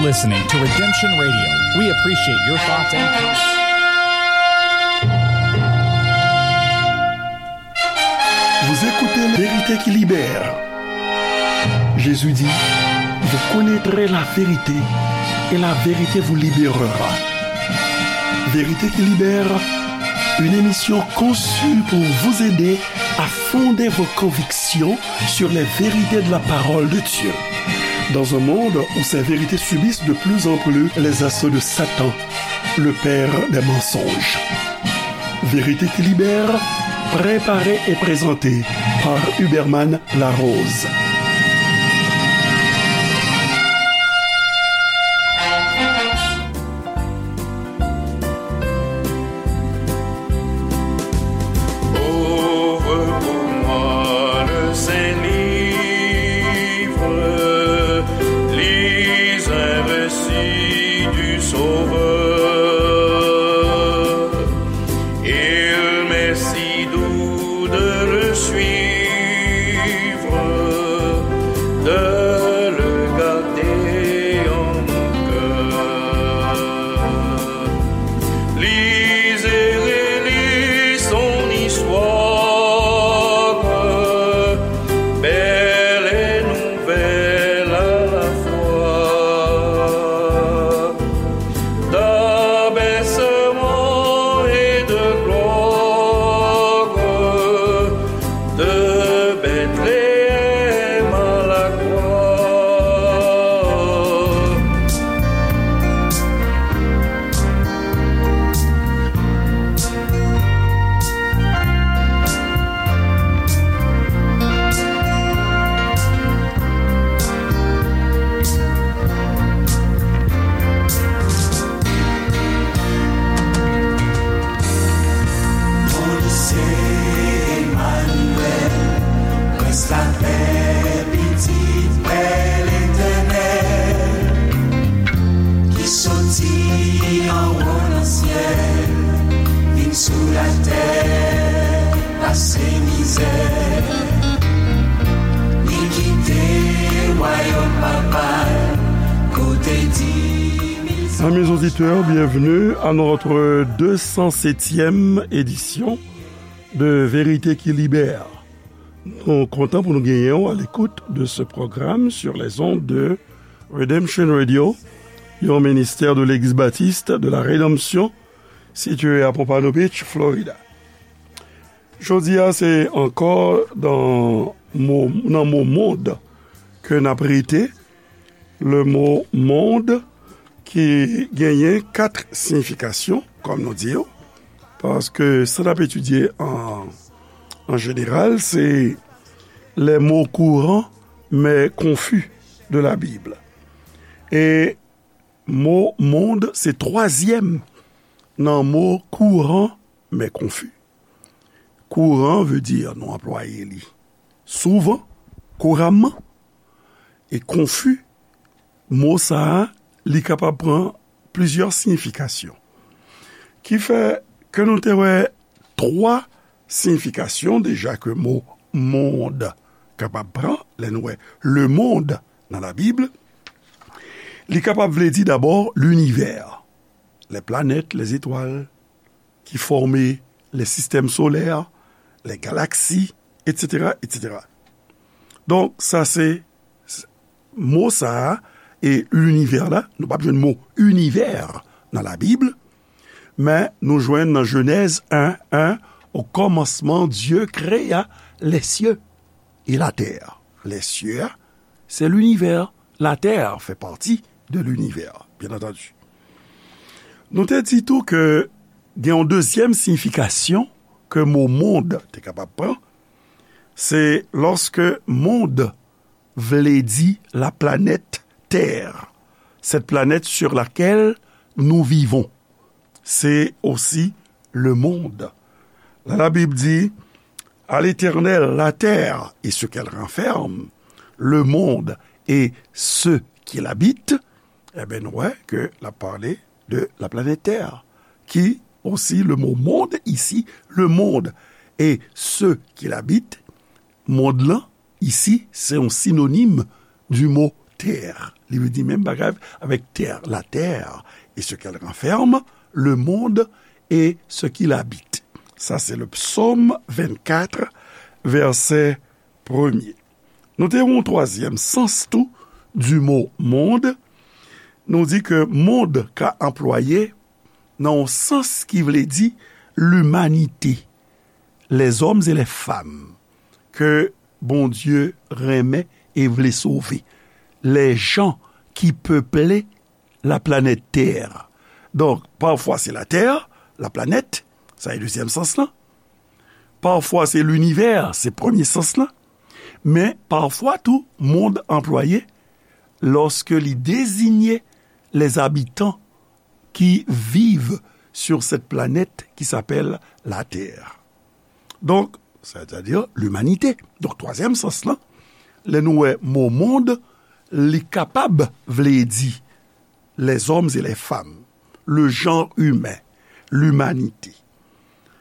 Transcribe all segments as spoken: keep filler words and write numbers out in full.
Listening to Redemption Radio. We appreciate your thoughts and comments. Vous écoutez Vérité qui libère. Jésus dit, vous connaîtrez la vérité et la vérité vous libérera. Vérité qui libère, une émission conçue pour vous aider à fonder vos convictions sur les vérités de la parole de Dieu. Dans un monde où ces vérités subissent de plus en plus les assauts de Satan, le père des mensonges. Vérité qui libère, préparée et présentée par Huberman Larose. Ouvre pour moi le Saint-Livre, lis un récit du Sauveur. Il m'est si doux de le suivre, de le garder en mon cœur. Lis et relis son histoire, belle et nouvelle à la fois. D'abaissement et de gloire, de Bethléem à la croix. Bondye se Emmanuel, Prince la paix, Pitit Pè Letènèl, ki soti anwo nan syèl, vin sou latè, pase mizè. Li kite wayòm papa l, kote di mil Amis auditeurs, bienvenue à notre deux cent septième édition de Vérité qui Libère. Nou kontan pou nou genyen w à l'écoute de ce programme sur les ondes de Redemption Radio, yon ministè de Legliz Batis de la Redanmsyon, sitiye à Pompano Beach, Florida. Jodi a, se ankò nan mo, nan mo mond ke n ap rete. Le mo mond ki genyen kat siyifikasyon, kòm nou di yo, paske sa n ap etidye an, an jeneral, se les mots courants mais confus de la Bible. E mo mond se twazyèm nan mo kouran men konfi. Kouran vle di nou anplwaye li souvan, kouramman, e konfi, mo sa a, li kapab pran plizyè siyifikasyon. Ki fè ke nou te wè twa siyifikasyon deja ke mo mond kapab pran, lè nou wè le monde nan Labib. Li kapab vle di dabò linivè, les planètes, les étoiles qui forment les systèmes solaires, les galaxies, et cetera, et cetera. Donk, sa se, s-, mo sa a, e linivè la, nou p ap jwenn mo inivè nan Labib, men nou jwenn nan Jenèz en, en, au commencement, Dieu créa les cieux et la terre. Les cieux, c'est l'univers. La terre fait partie de l'univers, bien entendu. Nou te di tou ke gen yon dezyèm siyifikasyon ke mo mond te kapab pran, se lòske mond vle di la planète Terre, cette planète sur laquelle nous vivons. C'est aussi le monde. La, la Bible dit, à l'Éternel, la terre et ce qu'elle renferme, le monde et ceux qui l'habitent. Ebyen, nou wè ke l ap pale de la planète Terre, qui aussi, le mot monde ici, le monde et ceux qui l'habitent, mond lan, ici, c'est un synonyme du mot terre. Li vle di menm bagay avèk tè, la terre et ce qu'elle renferme, le monde et ce qu'il habite. Sa se le psaume vingt-quatre, vèsè premye. Nou te yon twazyèm sans tou du mot monde. Nou di ke mond ka anplwaye nan yon sans ki vle di limanite, les hommes et les femmes ke Bondye renmen e vle sove, les gens qui peuplent la planète Terre. Donk, pafwa se la tè, la planèt, sa e dezyèm sans lan. Pafwa se linivè, se premye sans lan. Men pafwa tou, mond anplwaye lòske li dezinye les habitants qui vivent sur cette planète qui s'appelle la Terre. Donk, c'est-à-dire l'humanité. Donk, twazyèm sans lan, lè nou wè mo mond, li kapab vle di les hommes et les femmes, le genre humain, l'humanité.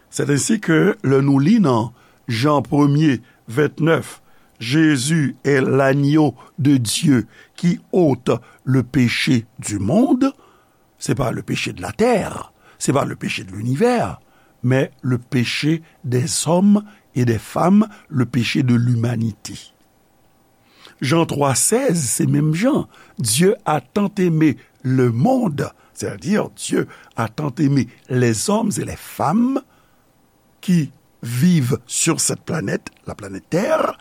C'est ainsi que lè nou li nan Jan premye vennèf, Jésus est l'agneau de Dieu qui ôte le péché du monde, c'est pas le péché de la terre, c'est pas le péché de l'univers, mais le péché des hommes et des femmes, le péché de l'humanité. Jan twa sèz, se menm jan. Dieu a tant aimé le monde, c'est-à-dire Dieu a tant aimé les hommes et les femmes qui vivent sur cette planète, la planète Terre,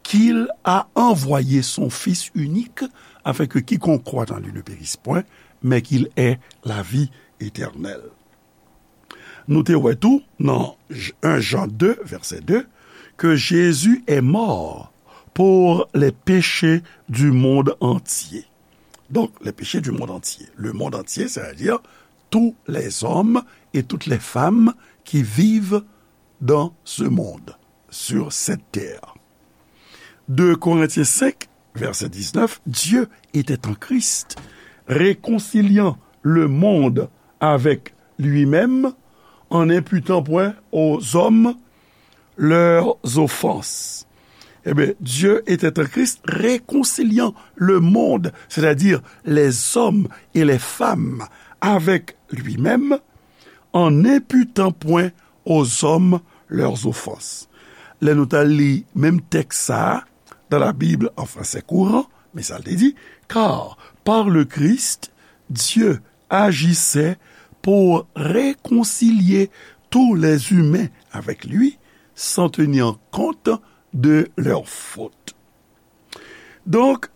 qu'il a envoyé son Fils unique, afin que quiconque croit en lui ne périsse point, mais qu'il ait la vie éternelle. Nou te wè tou nan un Jean deux, verset deux, que Jésus est mort pour les péchés du monde entier. Donc, les péchés du monde entier. Le monde entier, c'est-à-dire tous les hommes et toutes les femmes qui vivent dans ce monde, sur cette terre. Deux Corinthiens cinq, verset dix-neuf, Dieu était en Christ, réconciliant le monde avec lui-même, en n'imputant point aux hommes leurs offenses. Eh bien, Dieu était en Christ, réconciliant le monde, c'est-à-dire les hommes et les femmes, avec lui-même, en n'imputant point aux hommes leurs offenses. Lè nou t al li menm tèks sa a dans la Bible en français courant, men sa l te di, car par le Christ, Dieu agissait pour réconcilier tous les humains avec lui, sans tenir compte de leurs fautes. Donk,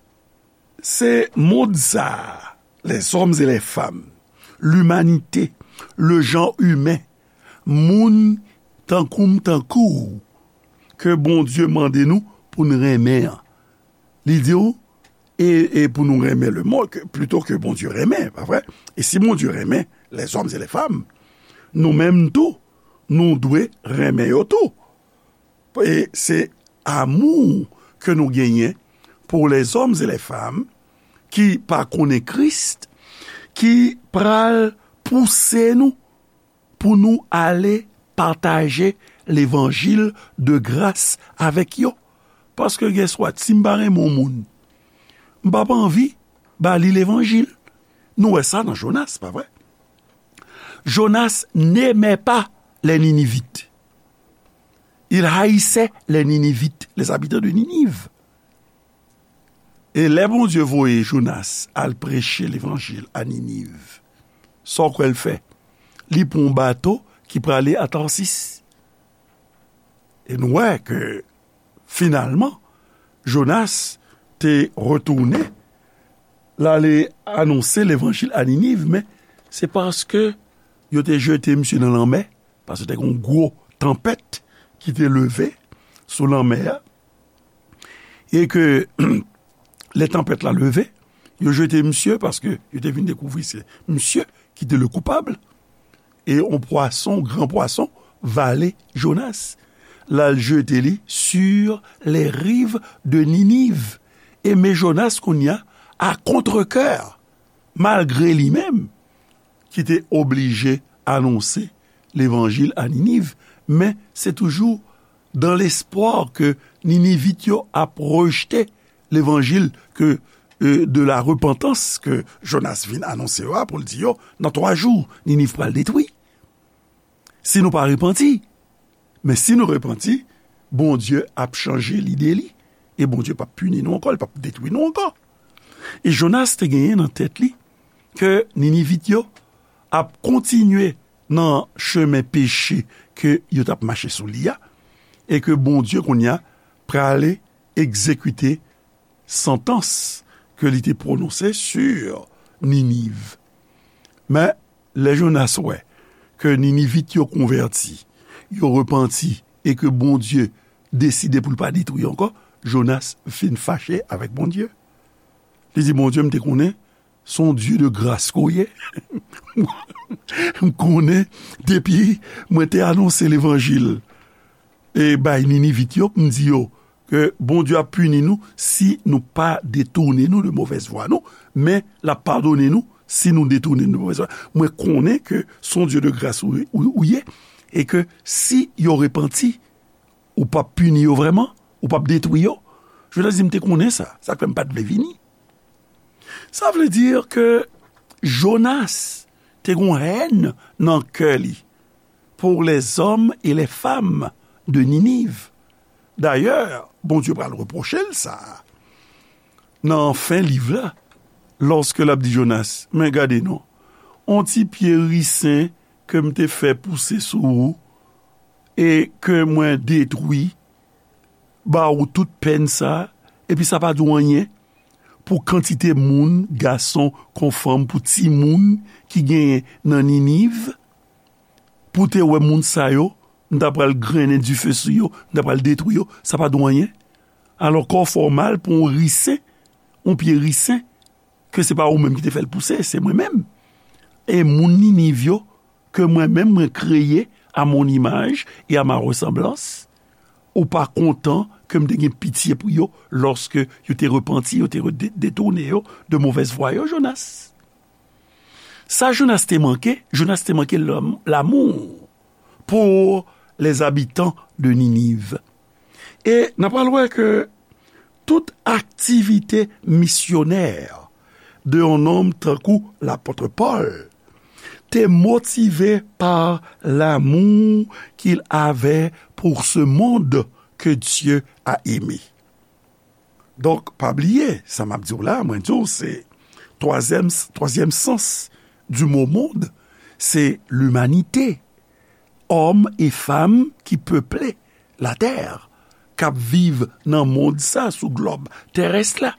se mond sa a, les hommes et les femmes, l'humanité, le genre humain, moun tankou m, tankou w, ke Bondye mande nou pou n renmen an. Li di w, e, e pou nou renmen le monde, ke, plito ke Bondye renmen, pa vre? E si Bondye renmen les hommes et les femmes, nou menm tou, nou dwe renmen yo tou. E se amou ke nou genyen pour les hommes et les femmes ki pa konnen Kris, ki pral pouse nou pou nou ale pataje levanjil de gras avèk yo. Paske, guess what, si m pa renmen yon moun, m p ap anvi ba li levanjil. Nou wè sa nan Jonas, pa vre? Jonas n'aimait pas les Ninivites. Il haïssait les Ninivites, les habitants de Ninive. E lè Bondye voye Jonas al preche levanjil a Niniv, sa w kwè l fè? Li pran yon bato ki prale a Tarsis. E nou wè ke, finalman, Jonas te retounen, l ale anonse levanjil a Niniv, men se paske yo te jete misye nan lanmè, paske te gen yon gwo tanpèt ki te leve sou lanmè a, e ke lè tanpèt la leve, yo jete misye paske yo te vin dekouvri se misye ki te le koupab, e yon pwason, gran pwason, vale Jonas. L al jete li sur les rives de Ninive. E men Jonas kounye a, à contre-cœur, malgre li menm, ki te oblije anonse levanjil a Niniv, men se toujou dans l'espoir ke Ninivit yo ap rejte levanjil ke e, de la repantans ke Jonas vin anonse yo a, pou l di yo, nan twa jou, Niniv pral detwi. Si nou pa repanti, men si nou repanti, Bondye ap chanje lide li, e Bondye p ap pini nou ankò, li p ap detwi nou ankò. E Jonas te genyen nan tèt li ke Ninivit yo ap kontinye nan chemen peche ke yo t ap mache sou li a, e ke Bondye kounye a prale egzekite santans ke li te pwononse sou Niniv. Men, lè Jonas wè ke Ninivit yo konvèti, yo repanti, e ke Bondye deside pou l pa detwi ankò, Jonas vin fache avèk Bondye. Li di, Bondye, m te konnen se yon Dye de gras ke w ye. M konnen depi mwen te anonse levanjil e bay Ninivit yo, m di yo ke Bondye ap pini nou si nou pa detounen nou de movèz vwa nou, men l ap padone nou si nou detounen nou de movèz vwa. Mwen konnen ke se yon Dye de gras ou, ou, ou ye, e ke si yo repanti, ou p ap pini yo vrèman, ou p ap detwi yo. Jonas di, m te konnen sa, sa k fè m pa t vle vini. Sa vle di ke Jonas te gen yon hèn nan kè li pour les hommes et les femmes de Ninive. Dayè, Bondye pral repwoche l sa nan fen liv la, lòske l ap di Jonas, men gade non, on ti pye risen ke m te fè pouse sou ou, e ke mwen detwi, ba ou tout pèn sa, epi sa pa di w anyen pou kantite moun, gason kon fanm, pou timoun ki genyen nan Niniv, pou te wè moun sa yo, m ta pral grennen dife sou yo, m ta pral detwi yo, sa pa di w anyen. Alò, kò w fè w mal pou yon risen, yon pye risen, ke se pa ou menm ki te fè l pouse, se mwen menm. E moun Niniv yo, ke mwen menm mwen kreye à mon image et à ma ressemblance, ou pa kontan ke m te gen pitye pou yo lòske yo te repanti, yo te re-, de-, detounen yo de movèz vwa yo, Jonas? Sa Jonas te manke, Jonas te manke lam-, lamou pour les habitants de Ninive. E n ap pral wè ke tout aktivite misyonè de yon nonm tankou lapòt Pòl te motive pa l'amour qu'il avait pour ce monde que Dieu a aimé. Donk, pa bliye, sa m ap di w la, mwen di w, se twazyèm, twazyèm sans du mot monde, se l'humanité. Òm e fanm ki peple latè, k ap viv nan mond sa, sou glòb terès la.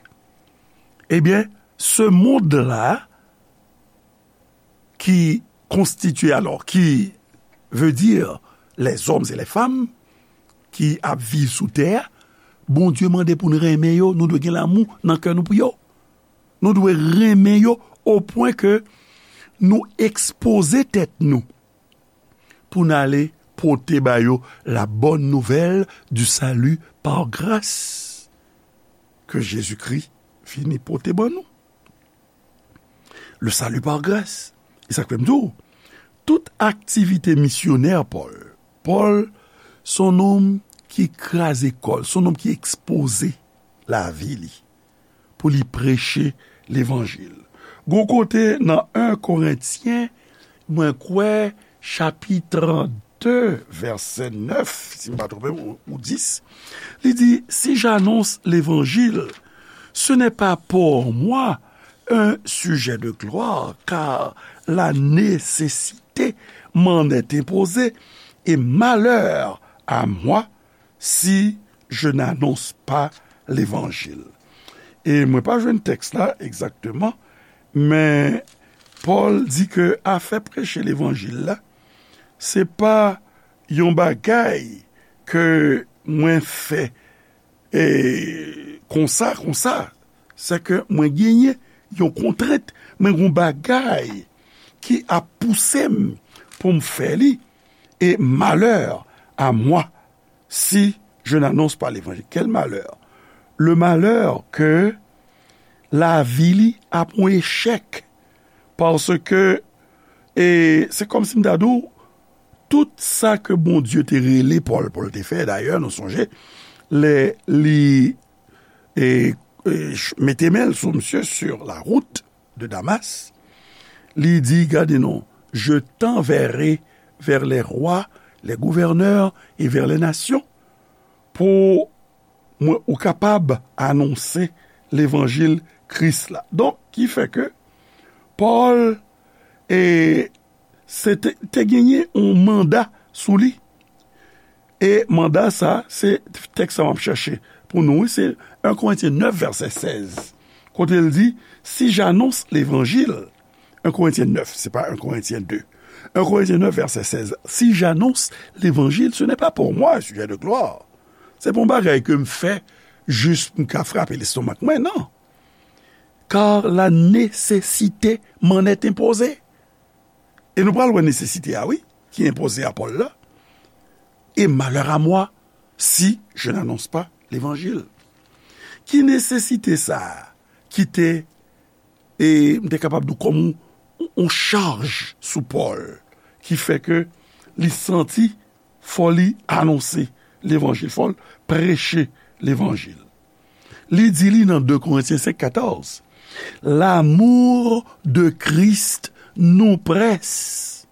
Ebyen, se mond la ki konstitye, alò, ki veut dire les hommes et les femmes ki ap viv sou tè a, Bondye mande pou n renmen yo, nou dwe gen lamou nan kè nou pou yo. Nou dwe renmen yo o pwen ke nou ekspoze tèt nou pou n ale pote ba yo la bonne nouvelle du salut par grâce ke Jezikri vini pote ban nou. Le salut par grâce. E sa k fè m di w, tout aktivite misyonè Pòl, Pòl se yon nonm ki kraze kò l, se yon nonm ki ekspoze lavi li pou li preche levanjil. Gon kote nan en Korentyen, mwen kwè, chapit de, vèsè nèf, si m pa twonpe m, ou, ou dis, li di, si j'annonce l'évangile, ce n'est pas pour moi un sujet de gloire, car la nécessité m'en est imposée, et malheur à moi si je n'annonce pas l'évangile. E mwen pa jwenn tèks la egzakteman, men Pòl di ke afè preche levanjil la, se pa yon bagay ke mwen fè, e, konsa, konsa. Se ke mwen genyen yon kontrent, mwen gen yon bagay ki ap pouse m pou m fè li, et malheur à moi si je n'annonce pas l'évangile. Quel malheur? Le malheur ke lavi li ap yon echèk. Paske, e, se kòmsi m ta di w, tout sa ke Bondye te rele Pòl pou l te fè, dayè, nou sonje, lè li, e, e, ch-, mete men l sou misye sur la route de Damas. Li di, gade non, je t'enverrai vers les rois, les gouverneurs et vers les nations, pou mwen, ou kapab anonse levanjil Kris la. Donk, ki fè ke Pòl, e, se te, te genyen yon manda sou li. E manda sa, se tèks sa m ap chèche pou nou, wi, se un Corinthiens neuf, verset seize. Kote l di, si j'annonce l'évangile, un Corinthiens neuf, se pa un Corinthiens deux. Un Corinthiens neuf, verset seize. Si j'annonce l'évangile, ce n'est pas pour moi un sujet de gloire. Se pa yon bagay ke m fè jis pou m ka frape lestomak mwen, non. Car la nécessité m'en est imposée. E nou pral wè nesesite a, wi, ki enpoze a Pòl la. Et malheur à moi si je n'annonce pas l'évangile. Ki nesesite sa a ki te, e m te kapab di w kòm yon, yon chaj sou Pòl, ki fè ke li santi fò li anonse levanjil, fò l preche levanjil. Li di li nan deux Corinthiens cinq quatorze, l'amour de Christ nous presse,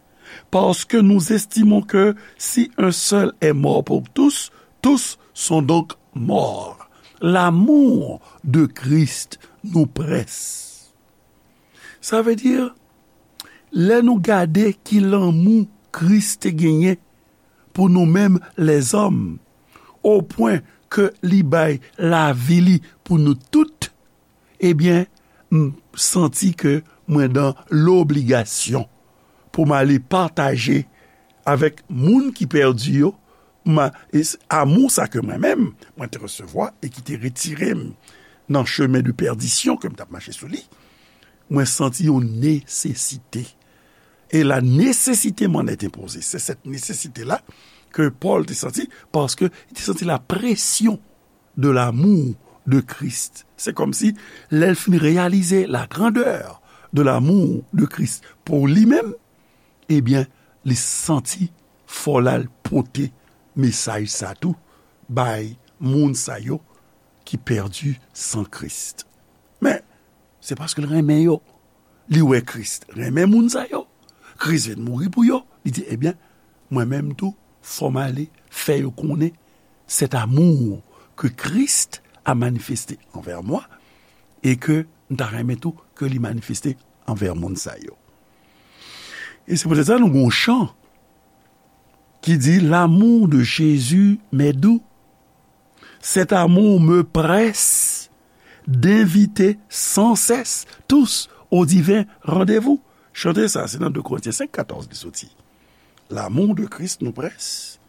parce que nous estimons que si un seul est mort pour tous, tous sont donc morts. L'amour de Christ nous presse. Sa vle di, lè nou gade ki lanmou Kris te genyen pou nou menm lèzòm, o pwen ke li bay lavi li pou nou tout, ebyen, m santi ke mwen dan lobligasyon pou m ale pataje avèk moun ki pèdi yo, ma, e s-, amou sa ke mwen menm, mwen te resevwa e ki te retire m nan chemen de pèdisyon ke m t ap mache sou li, mwen santi yon nesesite. Et la nécessité m'en est imposée. C'est cette nécessité-là que Paul te santi, paske li te santi la pression de l'amour de Christ. Se kòmsi, lè l fin reyalize la grandeur de l'amour de Christ pou li menm, ebyen, li santi fò l al pote mesaj sa tou bay moun sa yo ki pèdi san Kris. Men, se paske l renmen yo. Li wè Kris renmen moun sa yo. Kris vin mouri pou yo. Li di, ebyen, mwen menm tou, fò m ale fè yo konnen cet amour que Christ a manifesté envers moi et que m ta renmen tou ke li manifeste anvè moun sa yo. E se poutèt sa nou gen yon chan ki di, l'amour de Jésus m'est doux. Cet amour me presse d'inviter sans cesse tous au divin rendez-vous. Chante sa, se nan deux Corinthiens cinq quatorze li soti. L'amour de Christ nous presse.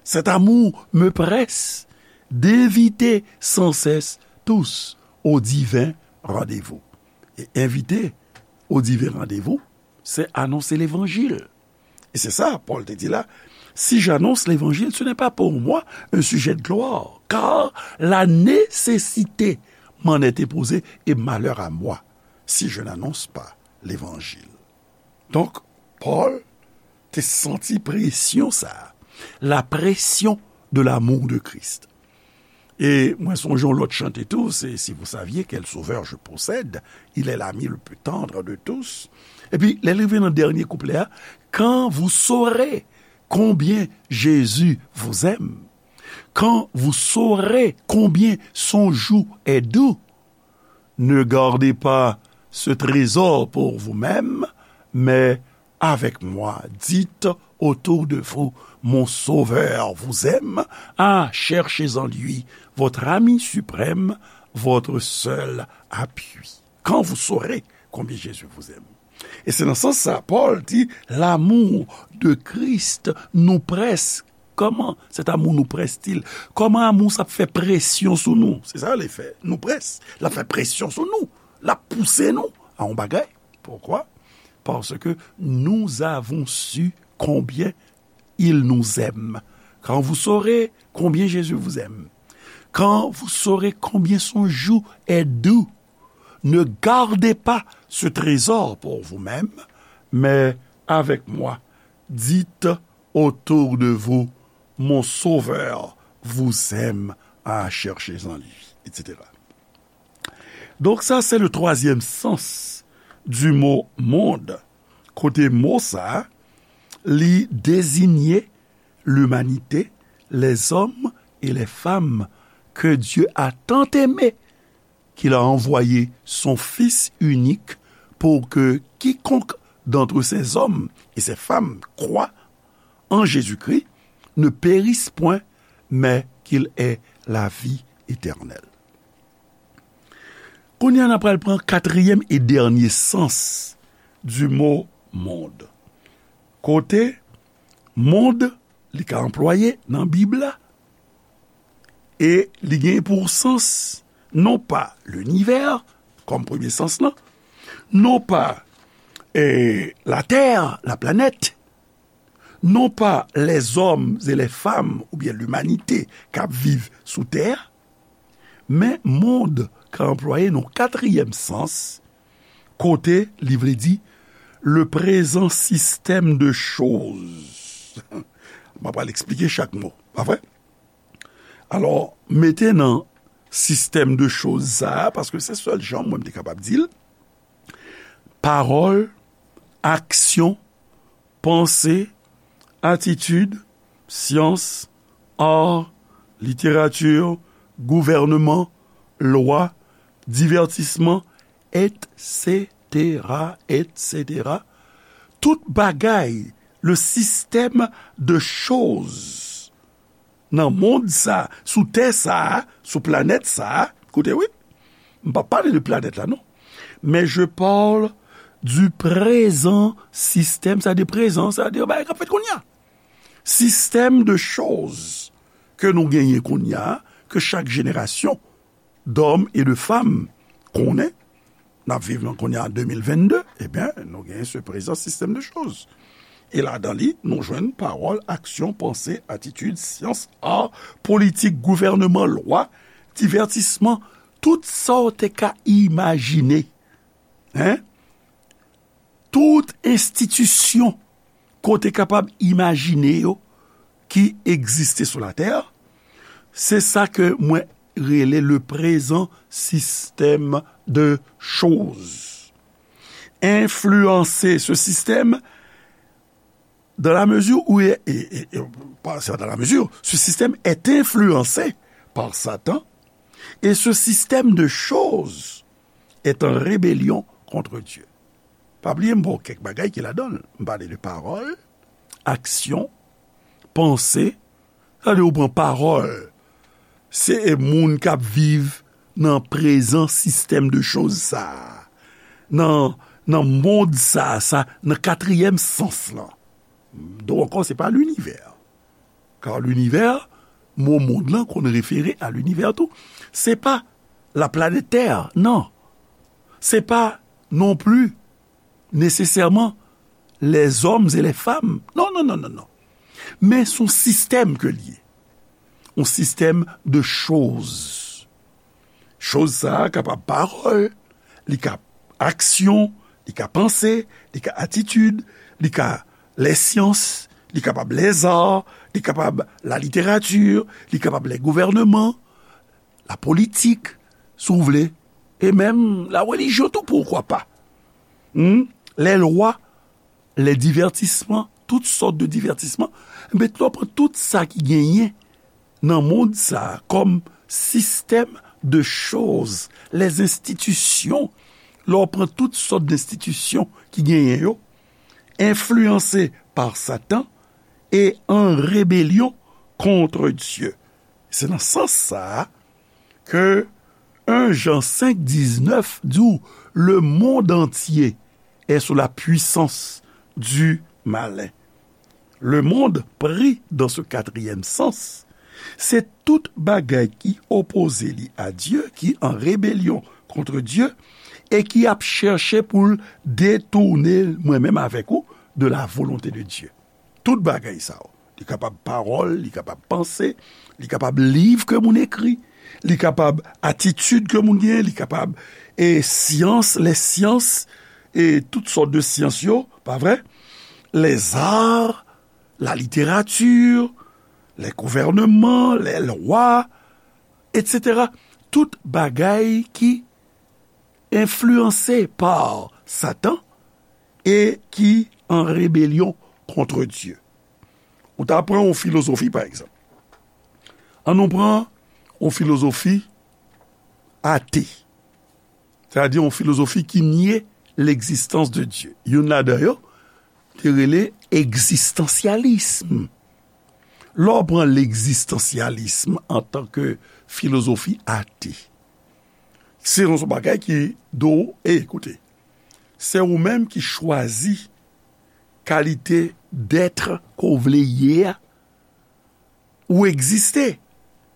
Cet amour me presse d'inviter sans cesse tous au divin rendez-vous. E envite au divin rendez-vous, se anonse levanjil. E se sa, Pòl te di la, si j'annonce l'évangile, ce n'est pas pour moi un sujet de gloire, car la nécessité m'en est imposée, et malheur à moi si je n'annonce pas l'évangile. Donk, Pòl te santi presyon sa a, la pression de l'amour de Christ. E mwen sonje yon lòt chante tou, se Si vous saviez quel sauveur je possède, il est l'ami le plus tendre de tous. Epi, lè l rive nan dènye kouplè a, quand vous saurez combien Jésus vous aime, quand vous saurez combien son joug est doux, ne gardez pas ce trésor pour vous-même, mais avec moi, dites autour de vous, mon Sauveur vous aime, ah, cherchez en lui votre ami suprême, votre seul appui. Quand vous saurez combien Jésus vous aime. E se nan sans sa, Pòl di, l'amour de Christ nous presse. Comment cet amour nous presse-t-il? Kòman amou sa ap fè presyon sou nou? Se sa li fè. Nous presse. L ap fè presyon sou nou. L ap pouse nou a yon bagay. Pourquoi? Parce que nous avons su combien il nous aime. Quand vous saurez combien Jésus vous aime, quand vous saurez combien son joug est doux, ne gardez pas ce trésor pour vous-même, mais avec moi, dites autour de vous, mon Sauveur vous aime, ah, cherchez en lui, et cetera. Donk, sa se le twazyèm sans du mot monde. Kote mo sa, li dezinye limanite, les hommes et les femmes que Dieu a tant aimés, qu'il a envoyé son Fils unique pour que quiconque d'entre ces hommes et ces femmes croit en Jésus-Christ ne périsse point, mais qu'il ait la vie éternelle. Kounye a, n ap pral pran katriyèm e dènye sans du mot monde. Kote monde, li ka anplwaye nan Bib la, e li gen pou sans, non pa linivè, kòm premye sans lan, non pa, eh, latè, la planète, non pa les hommes et les femmes oubyen limanite k ap viv sou tè a, men monde ka anplwaye nan katriyèm sans, kote li vle di le présent système de choses. M ap pral eksplike chak mo, pa vre? Alò, mete nan sistèm de choz sa a, paske se sèl jan mwen m te kapab di l, pawòl, aksyon, panse, atitid, syans, ar, literati, gouvènman, lwa, divètisman, etsetera, etsetera. Tout bagay, le système de choses nan mond sa, sou tè sa, sou planèt sa, koute wi, m pa pale de planèt la, non. Men je parle du présent système, sa de prezan, sa de bagay k ap fèt kounye a. Système de choses ke nou genyen kounye a, ke chak jenerasyon d'hommes et de femmes konnen, n ap viv nan kounye a de mil vennde, ebyen, nou genyen se prezan sistèm de choz. E ladan li, nou jwenn pawòl, aksyon, panse, atitid, syans, ar, politik, gouvènman, lwa, divètisman, tout sa w te ka imajine. Hein? Tout enstitisyon ke w te kapab imajine yo ki egziste sou latè, se sa ke mwen rele le prezan sistèm de choz. Enfliyanse se sistèm dans la mesure où, et, et, et, et, pas dans la mesure, ce système est influencé par Satan et ce système de choses est en rébellion contre Dieu. Pa bliye, m ba w kèk bagay ki ladan l. M pale de pawòl, aksyon, panse. Sa vle di ou pran pawòl. Se moun k ap viv nan prezan sistèm de choz sa a. Nan, nan mond sa a, sa, nan katriyèm sans lan. Donk ankò, se pa linivè. Kar linivè, mo mond lan konn refere a linivè tou. Se pa la planèt tè, non. Se pa non pli nesesèman les hommes et les femmes. Non, non, non, non, non. Men se yon sistèm ke l ye. Yon sistèm de choz. Choz sa a kapab pawòl, li ka aksyon, li ka panse, li ka atitid, li ka lèsyans, li kapab lèzar, li kapab laliterati, li kapab lègouvènman, lapolitik, si w vle, e menm larelijyon tou, poukwa pa. Hmm? Lèlwa, lèdivètisman, tout sòt de divètisman. Men lè w pran tout sa ki genyen nan mond sa a kòm sistèm de choz, lèzenstitisyon, lè w pran tout sòt de enstitisyon ki genyen yo, enfliyanse pa Satan e an rebelyon kont Dye. Se nan sans sa a ke en Jan senk diznèf di w, le monde entier est sous la puissance du malin. Le monde pris dans ce quatrième sens, se tout bagay ki opoze li a Dye, ki an rebelyon kont Dye, e ki ap chèche pou l detounen mwen menm avèk ou de la volonté de Dieu. Tout bagay sa yo. Li kapab pawòl, li kapab panse, li kapab liv ke moun ekri, li kapab atitid ke moun genyen, li kapab, e, syans, lèsyans, e tout sòt de syans yo, pa vre? Lèzar, laliterati, lègouvènman, lèlwa, etsetera. Tout bagay ki enfliyanse pa Satan e ki an rebelyon kont Dye. Ou ta pran yon filozofi, pa egzanp. An nou pran yon filozofi ate. Sètadi yon filozofi ki nye legzistans de Dye. Youn ladan yo te rele egzistansyalism. Lè w pran legzistansyalism antanke filozofi ate, se yon bagay ki di w, e, koute, se ou menm ki chwazi kalite dèt ke w vle ye a. Ou egziste,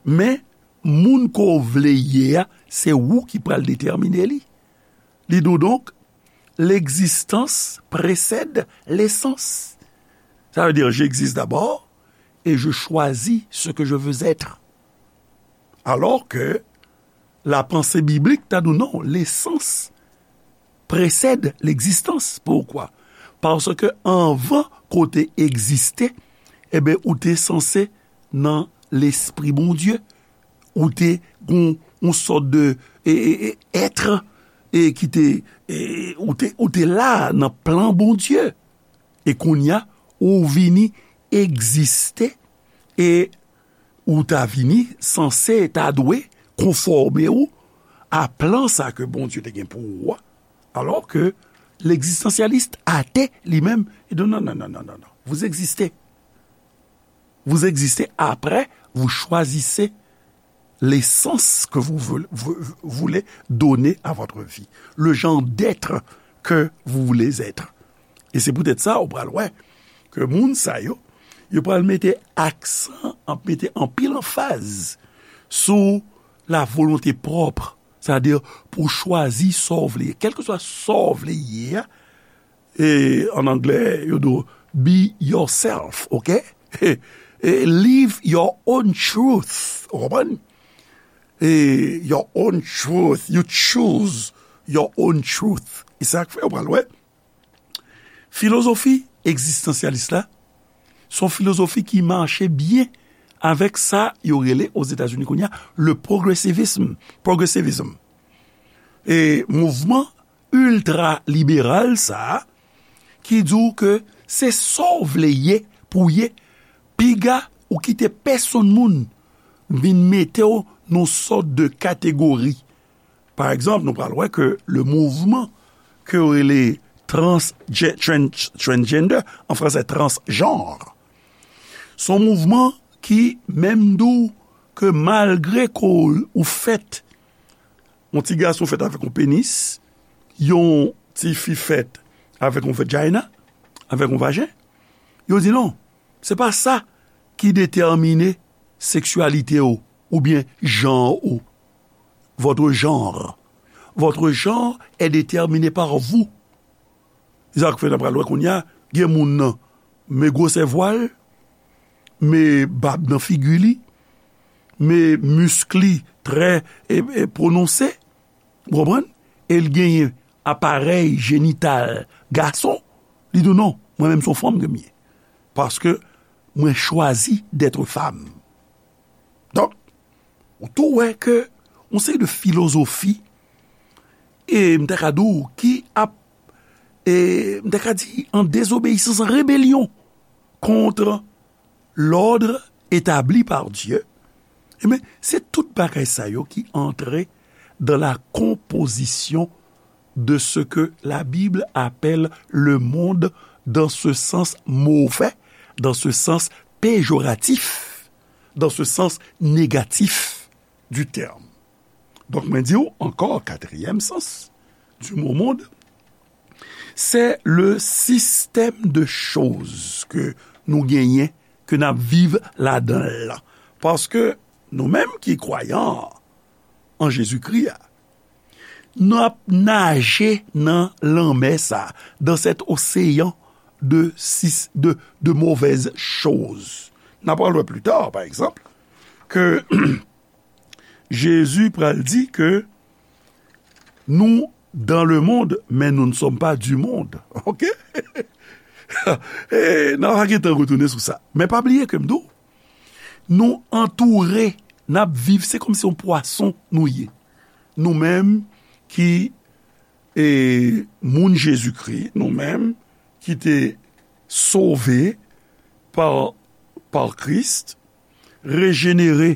men moun ke w vle ye a, se ou ki pral detèmine li. Li di w donk, l'existence précède l'essence. Ça veut dire, j'existe d'abord et je choisis ce que je veux être. Alors que la pensée biblique ta di w non, l'essence précède l'existence. Poukwa? Paske anvan ke w te egziste, enben, ou te sanse nan lespri Bondye. Ou te gon yon sòt de e, e, e, èt e, ki te e, ou te, ou te la nan plan Bondye. E kounye a, ou vini egziste e ou ta vini sanse, ta dwe konfòme w a plan sa ke Bondye te gen pou ou a. Alò ke legzistansyalis ate li menm, li di non, non, non, non, non, non. Vous existez. Vous existez, après, vous choisissez l'essence que vous voulez, vous voulez donner à votre vie, le genre d'être que vous voulez être. E se poutèt sa, ou pral wè ke moun sa yo, yo pral mete aksan, ap mete anpil anfaz sou la volonté propre, sètadi pou chwazi sa w vle ye. Kèlkeswa sa w vle ye a, e, an anglè, yo di w, be yourself, ok? E, live your own truth, ou konprann? E, your own truth, you choose your own truth. E sa k fè, ou pral wè, filozofi egzistansyalis la, se yon filozofi ki mache byen avèk sa yo rele Ozetazini kounye a le progressivism. Progressivism. E mouvman iltra liberal sa a, ki di w ke se sa w vle ye pou w ye, piga ou kite pèsonn moun vin mete w nan yon sòt de kategori. Pa egzanp, nou pral wè ke le mouvman ke yo rele trans, transgender, an fransè, transjanr, se yon mouvman ki menm di w ke malgre ke w fèt, yon ti gason fèt avèk yon penis, yon ti fi fèt avèk yon vajina, avèk yon vajen, yo di non, se pa sa ki detèmine seksyalite w oubyen jan ou. Votre genre. Votre genre est déterminé par vous. Se sa k fè n ap pral wè kounye a, gen moun nan, men gwosè vwa l, men bab nan figi li, men misk li trè e, e pwononse, ou konprann? E l genyen aparèy jenital gason, li di w non, mwen menm se yon fanm ke m ye. Paske mwen chwazi d'être femme. Donk, ou tou wè ke yon seri de filozofi, e m ta ka di w, ki ap, e m ta ka di, an dezobeyisans, an rebelyon kont lòd etabli pa Dye, ebyen, se tout bagay sa yo ki antre dans la composition de ce que la Bible appelle le monde dans ce sens mauvais, dans ce sens péjoratif, dans ce sens négatif du terme. Donk, mwen di w ankò, katriyèm sans du mot monde, c'est le système de choses ke nou genyen, ke n ap viv ladan l lan. Paske nou menm ki kwayan an Jezikri a, n ap naje nan lanmè sa, dans cet océan de, sis- de, de mauvaises choses. N ap pral wè pli ta, pa egzanp, ke Jezi pral di ke nou dans le monde, mais nous ne sommes pas du monde. Ok? E, n a va gentan retounen sou sa. Men pa bliye ke m di w, nou antoure, n ap viv, se kòmsi yon pwason nou ye. Nou menm ki e moun Jezikri, nou menm ki te sove pa, pa Kris, rejenere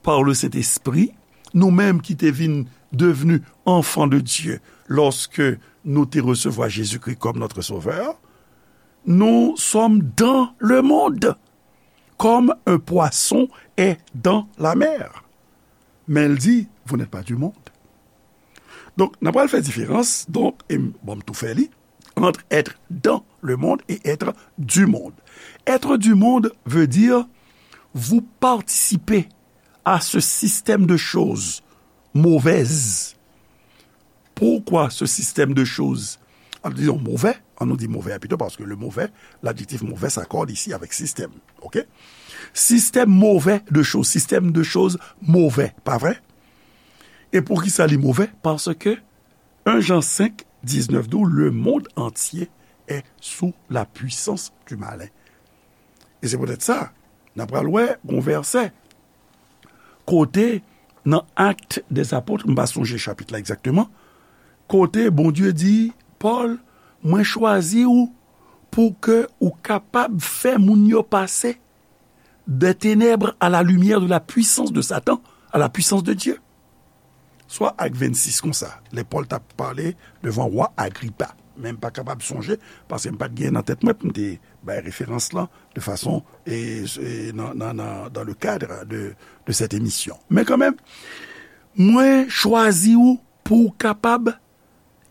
pa le Sentespri, nou menm ki te vin devni anfan de Dye lòske nou te resevwa Jezikri kòm notre Sauveur, nous sommes dans le monde, comme un poisson est dans la mer. Men l di, vous n'êtes pas du monde. Donk, n ap pral fè diferans, donk, e m, bon, m tou fè li, entre être dans le monde et être du monde. Être du monde veut dire vous participez à ce système de choses mauvaises. Pourquoi ce système de choses, disons, mauvais, ann nou di move a pito, paske le move, ladjektif move s'accorde ici avec système, ok? Système mauvais de choses, système de choses mauvais, pa vre? E poukisa li move? Paske un Jean cinq, dix-neuf di w, le monde entier est sous la puissance du malin. E se poutèt sa, n ap pral wè yon vèsè kote nan Actes des Apôtres, m pa sonje chapit la egzakteman, kote Bondye di, Pòl, mwen chwazi w pou ke ou kapab fè moun yo pase des ténèbres à la lumière de la puissance de Satan, à la puissance de Dieu. Swa ak vennsis konsa, lè Pòl t ap pale devan wa Agripa. Men m pa kapab sonje, paske m pa t gen nan tèt mwen pou m te bay referans lan de fason, e, e, nan, nan, nan, dans le cadre de, de cette émission. Men kanmenm, mwen chwazi w pou w kapab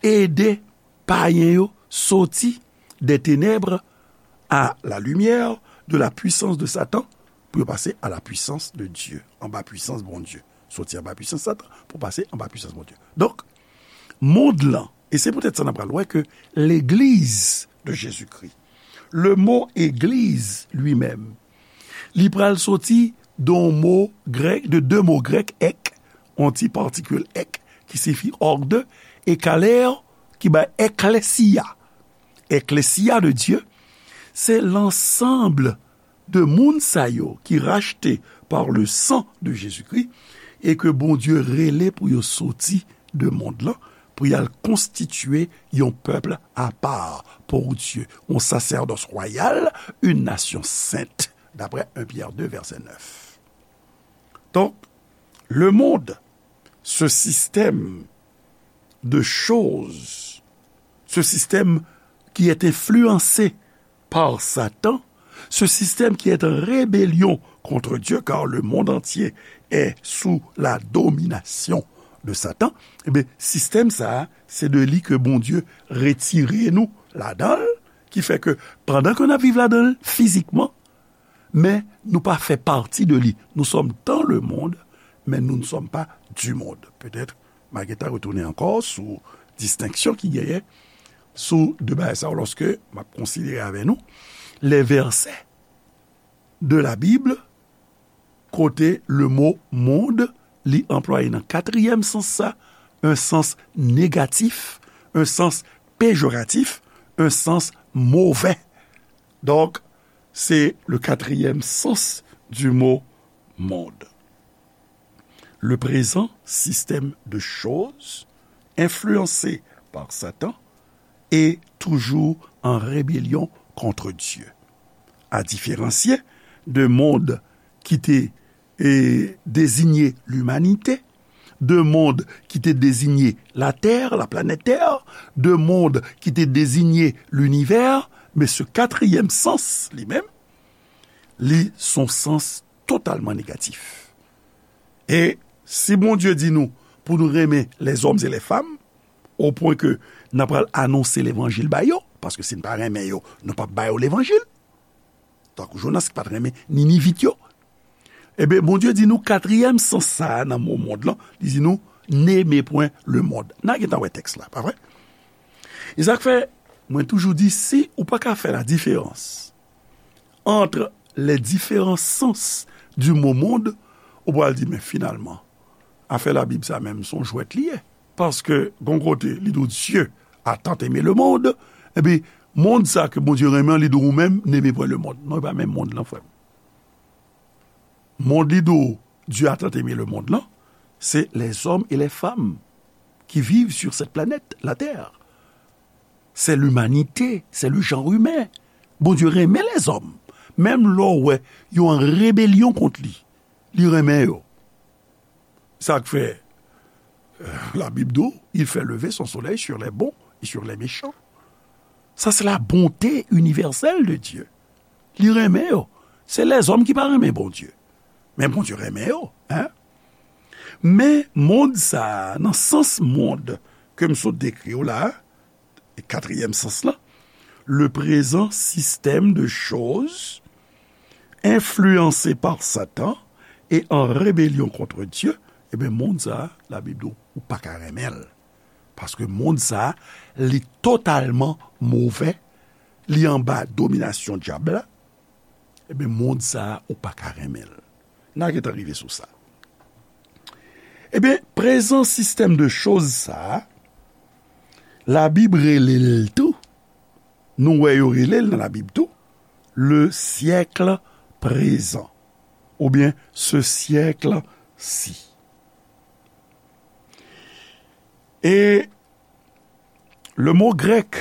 ede payen yo soti des ténèbres à la lumière de la puissance de Satan, pou yo pase à la puissance de Dieu, anba pwisans Bondye. Soti anba pwisans Satan pou pase anba pwisans Bondye. Donk, mond lan, e se poutèt sa n ap pral wè ke legliz de Jezikri, le mo église lui-même, li pral soti de yon mo grèk, de de mo grèk, ek, yon ti patikil ek, ki siyifi ordo, e kaler, ki bay ekklesia. Ekklesia de Dye, se lansanb de moun sa yo ki rachte par le sang de Jésus-Christ e ke Bondye rele pou yo soti de mond lan, pou y al konstitye yon pèp apa pour Dieu, yon sasèdòs wayal, une nation sainte, d'après un Pierre deux, verset neuf. Donc, le monde, ce système de choses, ce système qui est influencé par Satan, ce système qui est en rébellion contre Dieu, car le monde entier est sous la domination de Satan, ebyen, sistèm sa a, se de li ke Bondye retire nou ladan l, ki fè ke pandan ke n ap viv ladan l fizikman, men nou pa fè pati de li. Nous sommes dans le monde, mais nous ne sommes pas du monde. Petèt, m a gentan retounen ankò sou distenksyon ki genyen sou de bagay sa yo, lòske m ap konsidere avè nou les versets de la Bible kote le mo monde li anplwaye nan katriyèm sans sa, un sens négatif, un sens péjoratif, un sens mauvais. Donc, c'est le quatrième sens du mot monde. Le présent système de choses, influencé par Satan, est toujours en rébellion contre Dieu. À différencier de monde ki te, e, désigner l'humanité, de monde ki te désigner la Terre, la planète Terre, de monde ki te désigner l'univers, men se katriyèm sans, li menm, li se yon sans totalman negatif. E si Bondye di nou pou nou renmen les hommes et les femmes, o pwen ke n ap pral anonse levanjil ba yo, paske si n pa renmen yo, nou p ap ba yo levanjil. Tankou Jonas ki pa t renmen Ninivit yo. Ebyen, Bondye di nou katriyèm sans sa a nan mo mond lan, li di nou, n'aimez point le monde. N a gentan wè tèks la, pa vre? E sa k fè, mwen toujou di, si ou pa ka fè la différence entre les différents sens du mot monde, ou pral di, men finalman, afè Labib sa menm, se yon jwèt li ye. Paske, gon kote, li di w, Dieu a tant aimé le monde, epi, mond sa ke Bondye renmen an, li di w, ou menm, n'aimez point le monde. Non, e pa menm mond lan, frè m. Mond li di w, Dieu a tant aimé le monde lan, se les hommes et les femmes qui vivent sur cette planète, la Terre. C'est l'humanité, c'est le genre humain. Bondye renmen lèzòm. Menm lè w wè yo an rebelyon kont li, li renmen yo. Sa k fè, euh, la Bible dit, il fait lever son soleil sur les bons et sur les méchants. Ça, c'est la bonté universelle de Dieu. Li renmen yo. Se lèzòm ki pa renmen Bondye. Men Bondye renmen yo, hein? Men mond sa a, nan sans mond ke m sot dekri w la, katriyèm sans lan, le présent système de choses influencé par Satan et en rébellion contre Dieu, ebyen, mond sa a, Labib di w, ou pa ka renmen l. Paske mond sa a, li totalman movè, li anba dominasyon dyab la, ebyen, mond sa a, ou pa ka renmen l. N a gentan rive sou sa. Ebyen, prezan sistèm de choz sa a, Labib rele l tou, nou wè yo rele l nan Labib tou, le siècle présent, oubyen ce siècle-ci. E le mot grec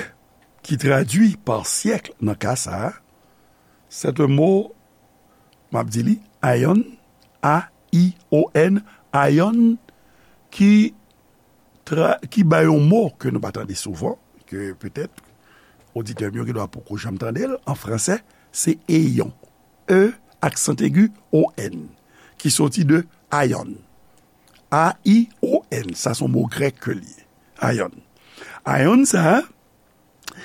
qui traduit par siècle nan ka sa a, c'est un mot, m ap di li, aion, A I O N, aion, ki tra-, ki bay yon mo ke nou pa tande souvan, ke petèt oditè m yo gendwa poko janm tande l, an fransè, se éon. E, aksan egi, O N, ki soti de aion. A I O N, sa se yon mo grèk ke l ye. Aion. Aion sa a,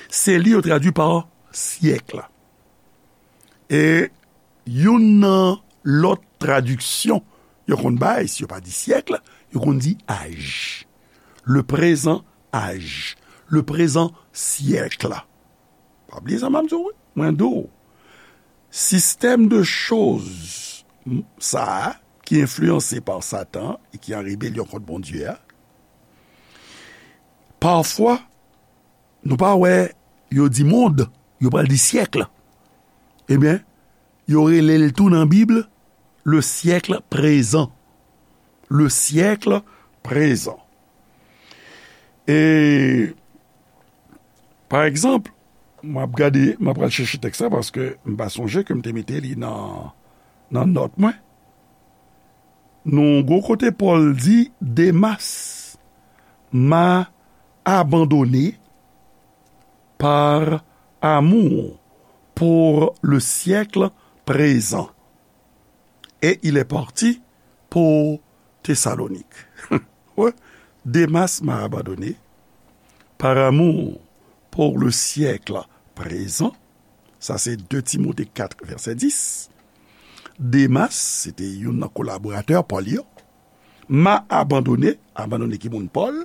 se li yo tradui pa syèk. E youn nan lòt tradiksyon yo konn bay, si yo pa di syèk, yo konn di aj. Le présent âge. Le présent siècle. Pa bliye sa m ap di w, wi. Mwen di w, sistèm de choz sa a, ki enfliyanse pa Satan e ki an rebelyon kont Bondye a, pafwa, nou pa wè yo di mond, yo pral di syèk. Ebyen, yo rele l tou nan Bib, le siècle présent. Le siècle présent. E, pa egzanp, m ap gade, m ap pral chèche tèks la paske m pa sonje ke m te mete li nan, nan nòt mwen. Nou gwo kote Pòl di, Demas m'a abandonné par amour pour le siècle présent. Et il est parti pour Thessalonique. Ouais. Demas m'a abandonné par amour pour le siècle présent. Sa se de Timote kat, vèsè dis. Demas, se te youn nan kolaboratè Pòl yo. M'a abandonné, abandone ki moun Pòl,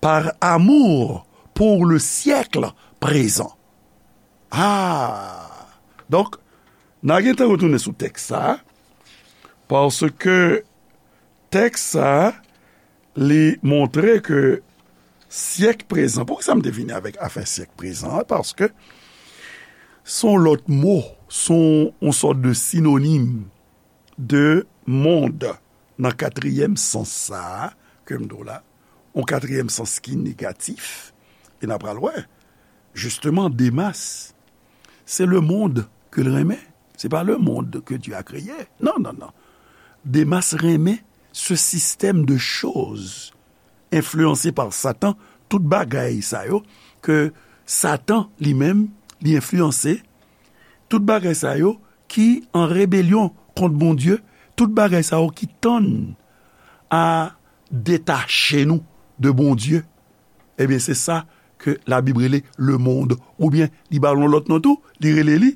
par amour pour le siècle présent. Ah! Donk, n a gentan retounen sou tèks sa a, paske tèks sa a, li montre ke syèk prezan, poukisa m te vini avèk afè syèk prezan an? Paske se yon lòt mo, se yon, yon sòt de sinonim de mond nan katriyèm sans sa a ke m di w la, yon katriyèm sans ki negatif, e n a pral wè, jisteman, Demas, se le monde ke l renmen, se pa le monde que Dieu a créé. Non, non, non. Demas renmen ce système de choses influencé par Satan, tout bagay sa yo ke Satan li menm li enfliyanse, tout bagay sa yo ki an rebelyon kont Bondye, tout bagay sa yo ki tann a detache nou de Bondye, ebyen, se sa ke Labib rele le monde, oubyen li ba l yon lòt non tou, li rele li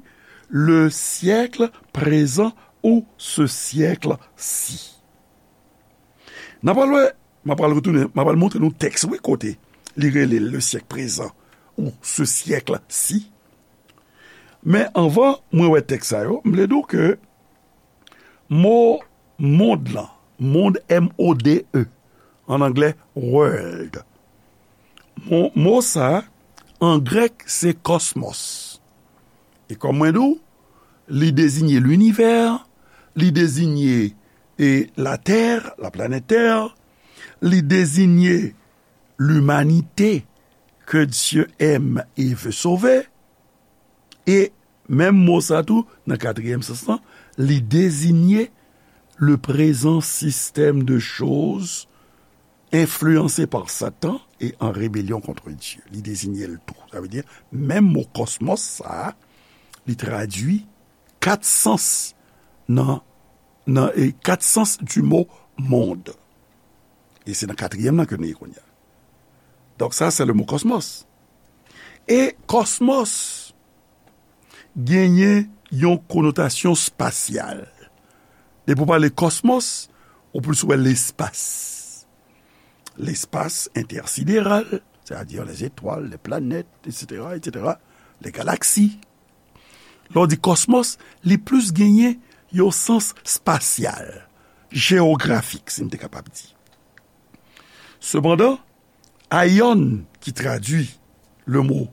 le siècle présent ou ce siècle-ci. N a pral wè, m a pral retounen, m a pral montre nou tèks, wi, kote li rele le siècle présent ou ce siècle-ci. Men anvan mwen wè tèks sa yo, m vle di w ke mo mond lan, mond, M O D E, an anglè, world. Mo, mo sa, an grèk, se kòsmos. E kòm mwen di w, li dezinye linivè, li dezinye, e, latè, la planète Terre, li dezinye l'humanité que Dieu aime et veut sauver. E menm mo sa tou, nan katriyèm sans lan, li deziye le présent système de choses influencé par Satan et en rébellion contre Dieu. Li deziye l tou. Sa vle di, menm mo kòsmòs sa a, li tradui kat sans nan, nan, e kat sans du mot monde. E se nan katriyèm nan ke nou ye kounye a. Donk sa, se le mo kòsmòs. E kòsmòs genyen yon konotasyon espasyal. Depi w pale kòsmòs, ou plis wè lespas. Lespas entèsideral, sètadi les étoiles, les planètes, et cetera, et cetera, les galaxies. Lè w di kòsmòs, li plis genyen yon sans espasyal, jewografik, si m te kapab di. Sepandan, aion, ki tradui le mo,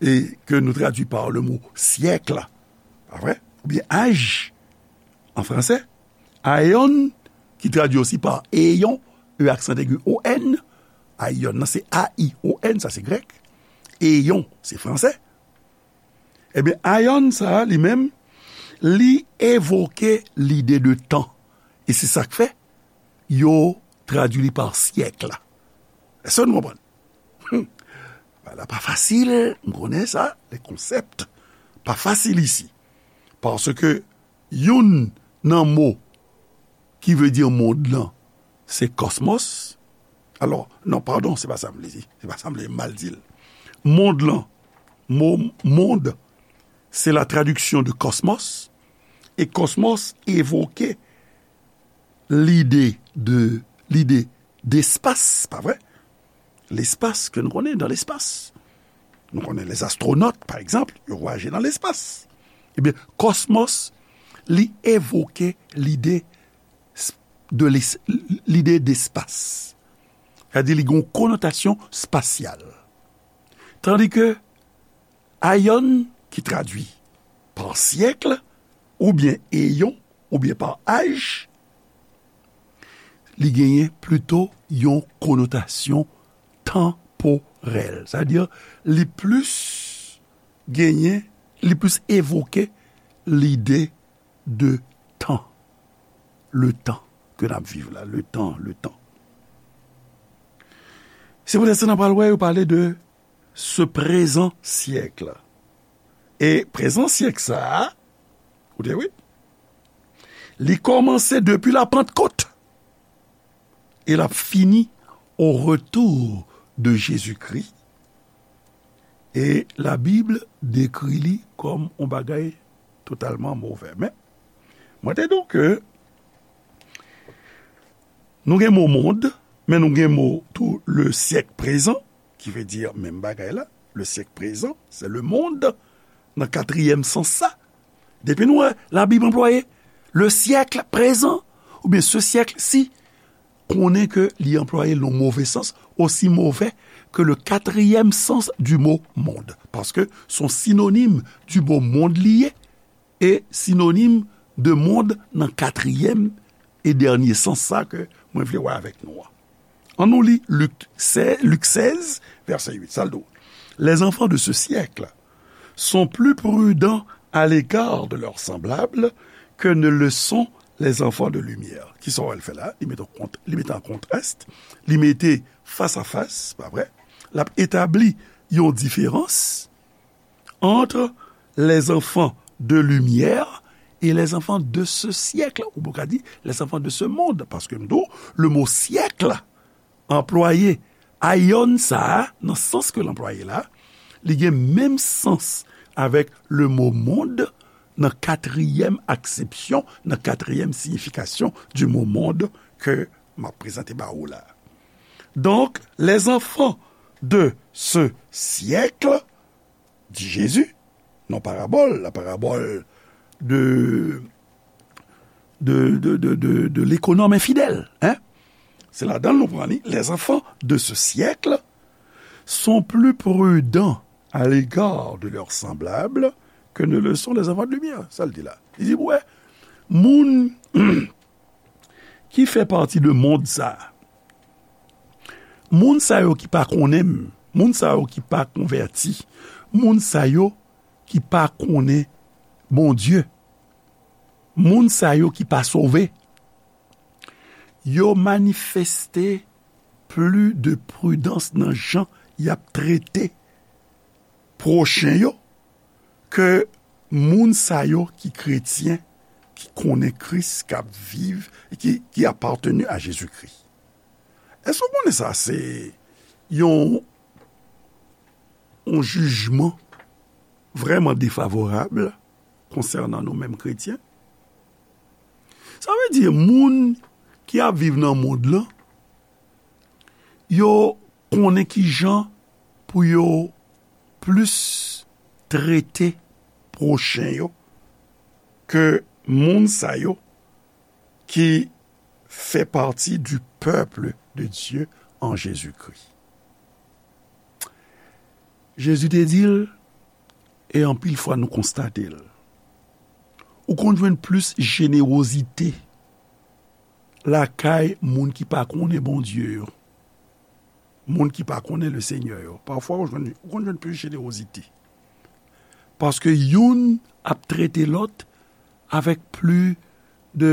e ke nou tradui pa le mo syèk, pa vre? Oubyen âge, an fransè, aion, ki tradui osi pa éon, E aksan egi O N, aion nan se A I O N, sa se grèk, éon, se fransè. Ebyen, aion sa a, li menm, li evoke lide de tan. E se sa k fè, yo tradui li pa syèk. Èske nou konprann? Hmm. Bagay la pa fasil, m konnen sa, les concepts pa fasil isi. Paske youn nan mo ki vle di mond lan, se kòsmòs. Alò, non, padon, se pa sa m vle di. Se pa sa m vle mal di l. Mond lan, mo mond, se la traduction de cosmos. E kòsmòs evoke lide de, lide despas, pa vre? Lespas ke nou konnen, dans l'espace. Nou konnen les astronautes, pa egzanp, yo vwayaje nan lespas. Ebyen, kòsmòs, li evoke lide s-, de les-, lide despas. Sètadi, li gen yon konotasyon espasyal. Tandi ke aion, ki tradui pa syèk, oubyen éon, oubyen pa âge, li genyen plito yon konotasyon tanporèl. Sètadi, li plis genyen, li plis evoke lide de tan. Le tan ke n ap viv la, le tan, le tan. Se poutèt sa n ap pral wè yo pale de ce présent siècle. E prezan syèk sa a, koute wi, li kòmanse depi la Pantkot e l ap fini au retour de Jésus-Christ. E Labib dekri li kòm yon bagay totalman movè. Men, mwen te di w ke nou gen mo mond, men nou gen mo tou le siècle présent, ki vle di menm bagay la, le siècle présent, c'est le monde, nan katriyèm sans sa. Depi nou wè Labib anplwaye le siècle présent, oubyen ce siècle-ci, konnen ke li anplwaye l nan move sans, aussi mauvais que le quatrième sens du mot monde. Paske se yon sinonim du mot monde li ye, e sinonim de mond nan katriyèm e dènye sans sa ke mwen vle wè avèk nou an. Ann nou li Lik sèz, Lik sèz, vèsè uit, sa l di w, les enfants de ce siècle sont plus prudents à l'égard de leurs semblables que ne le sont les enfants de lumière. Kisa w wè l fè la? Li mete an kont-, li mete an kontras, li mete fas a fas, pa vre? L ap etabli yon diferans entre les enfants de lumière et les enfants de ce siècle, ou ka di les enfants de ce monde, paske m di w, le mo siècle anplwaye, aion sa a, nan sans ke l anplwaye la, li gen menm sans avèk le mo monde nan katriyèm aksepsyon, nan katriyèm siyifikasyon du mot monde ke m ap prezante ba ou la. Donc, les enfants de ce siècle, di Jezi, nan parabòl, la parabole de, de, de, de, de, de l'économe infidèle, hein? Se ladan l nou pran li, les enfants de ce siècle sont plus prudents à l'égard de leurs semblables que ne le sont les enfants de lumière. Sa l di la. Li di, wè, moun ki fè pati de mond sa a, Moun sa yo ki pa konnen m, moun sa yo ki pa konvèti, moun sa yo ki pa konnen Bondye, moun sa yo ki pa sove, yo manifeste pli de pridans nan jan y ap trete pwochen yo ke moun sa yo ki kretyen, ki konnen Kris, k ap viv, ki, ki apateni a Jezikri. Èske w konnen sa se yon, yon jijman vrèman defavorab konsènan nou menm kretyen? Sa vle di, moun ki ap viv nan mond lan, yo konnen ki jan pou yo plis trete pwochen yo ke moun sa yo ki fè pati du peuple de Dieu en Jésus-Christ. Jezi te di l, e anpil fwa nou konstate l, ou konn jwenn plis jenerozite lakay moun ki pa konnen Bondye yo, moun ki pa konnen le Senyè yo. Pafwa, ou jwenn, ou konn jwenn plis jenerozite. Paske youn ap trete lòt avèk plis de,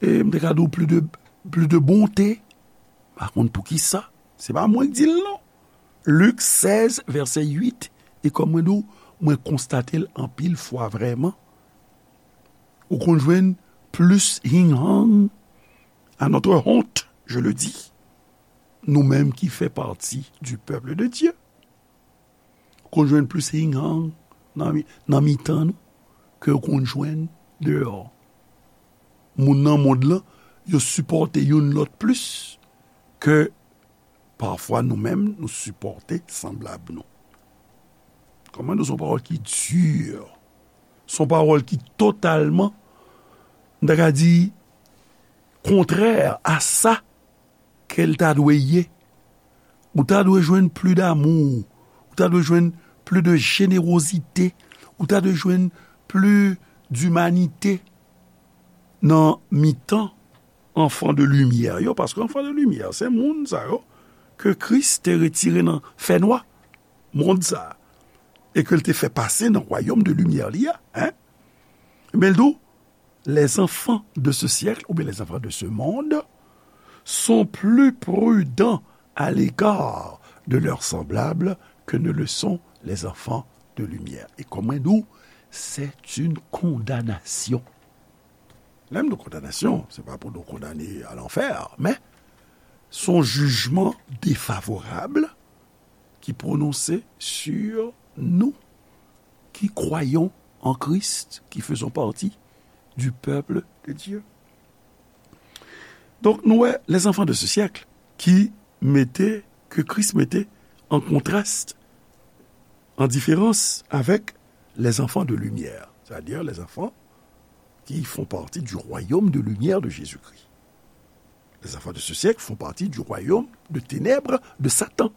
e, m te ka di w plis de, plis de bonte. M pa konn poukisa. Se pa mwen k di l non. Lik sèz, vèsè uit, e kòm mwen di w, mwen konstate l anpil fwa vrèman. Ou konn jwenn plis hinghang, à notre honte, je le dis, nou menm ki fè pati du peuple de Dieu. Ou konn jwenn plis hinghang nan mi-, nan mitan nou ke ou konn jwenn deyò. Moun nan mond lan, yo sipòte youn lòt plis ke pafwa nou menm nou sipòte sanblab nou. Kòman di w, se yon pawòl ki di, se yon pawòl ki totalman, m ta ka di, kontrè a sa ke l ta dwe ye. Ou ta dwe jwenn plis damou, ou ta dwe jwenn plis de jenerozite, ou ta dwe jwenn plis dimanite nan mitan enfants de lumière yo, paske enfants de lumière, se moun sa yo ke Kris te retire nan fènwa mond sa a, e ke l te fè pase nan wayòm de limyè li a, en. Men l di w, les enfants de ce siècle, oubyen les enfants de ce monde, sont plus prudents à l'égard de leurs semblables que ne le sont les enfants de lumière. E kòm mwen di w, c'est une condamnation. Lè m di kondanasyon, se pa pou nou kondane a lanfè, men se yon jijman defavorab ki pwononse sur nous qui croyons en Christ, qui faisons partie du peuple de Dieu. Donk, nou wè, les enfants de ce siècle ki mete, ke Kris mete an kontrast, an diferans avèk les enfants de lumière, c'est-à-dire les enfants qui font partie du royaume de lumière de Jésus-Christ. Les enfants de ce siècle font partie du royaume de ténèbres de Satan.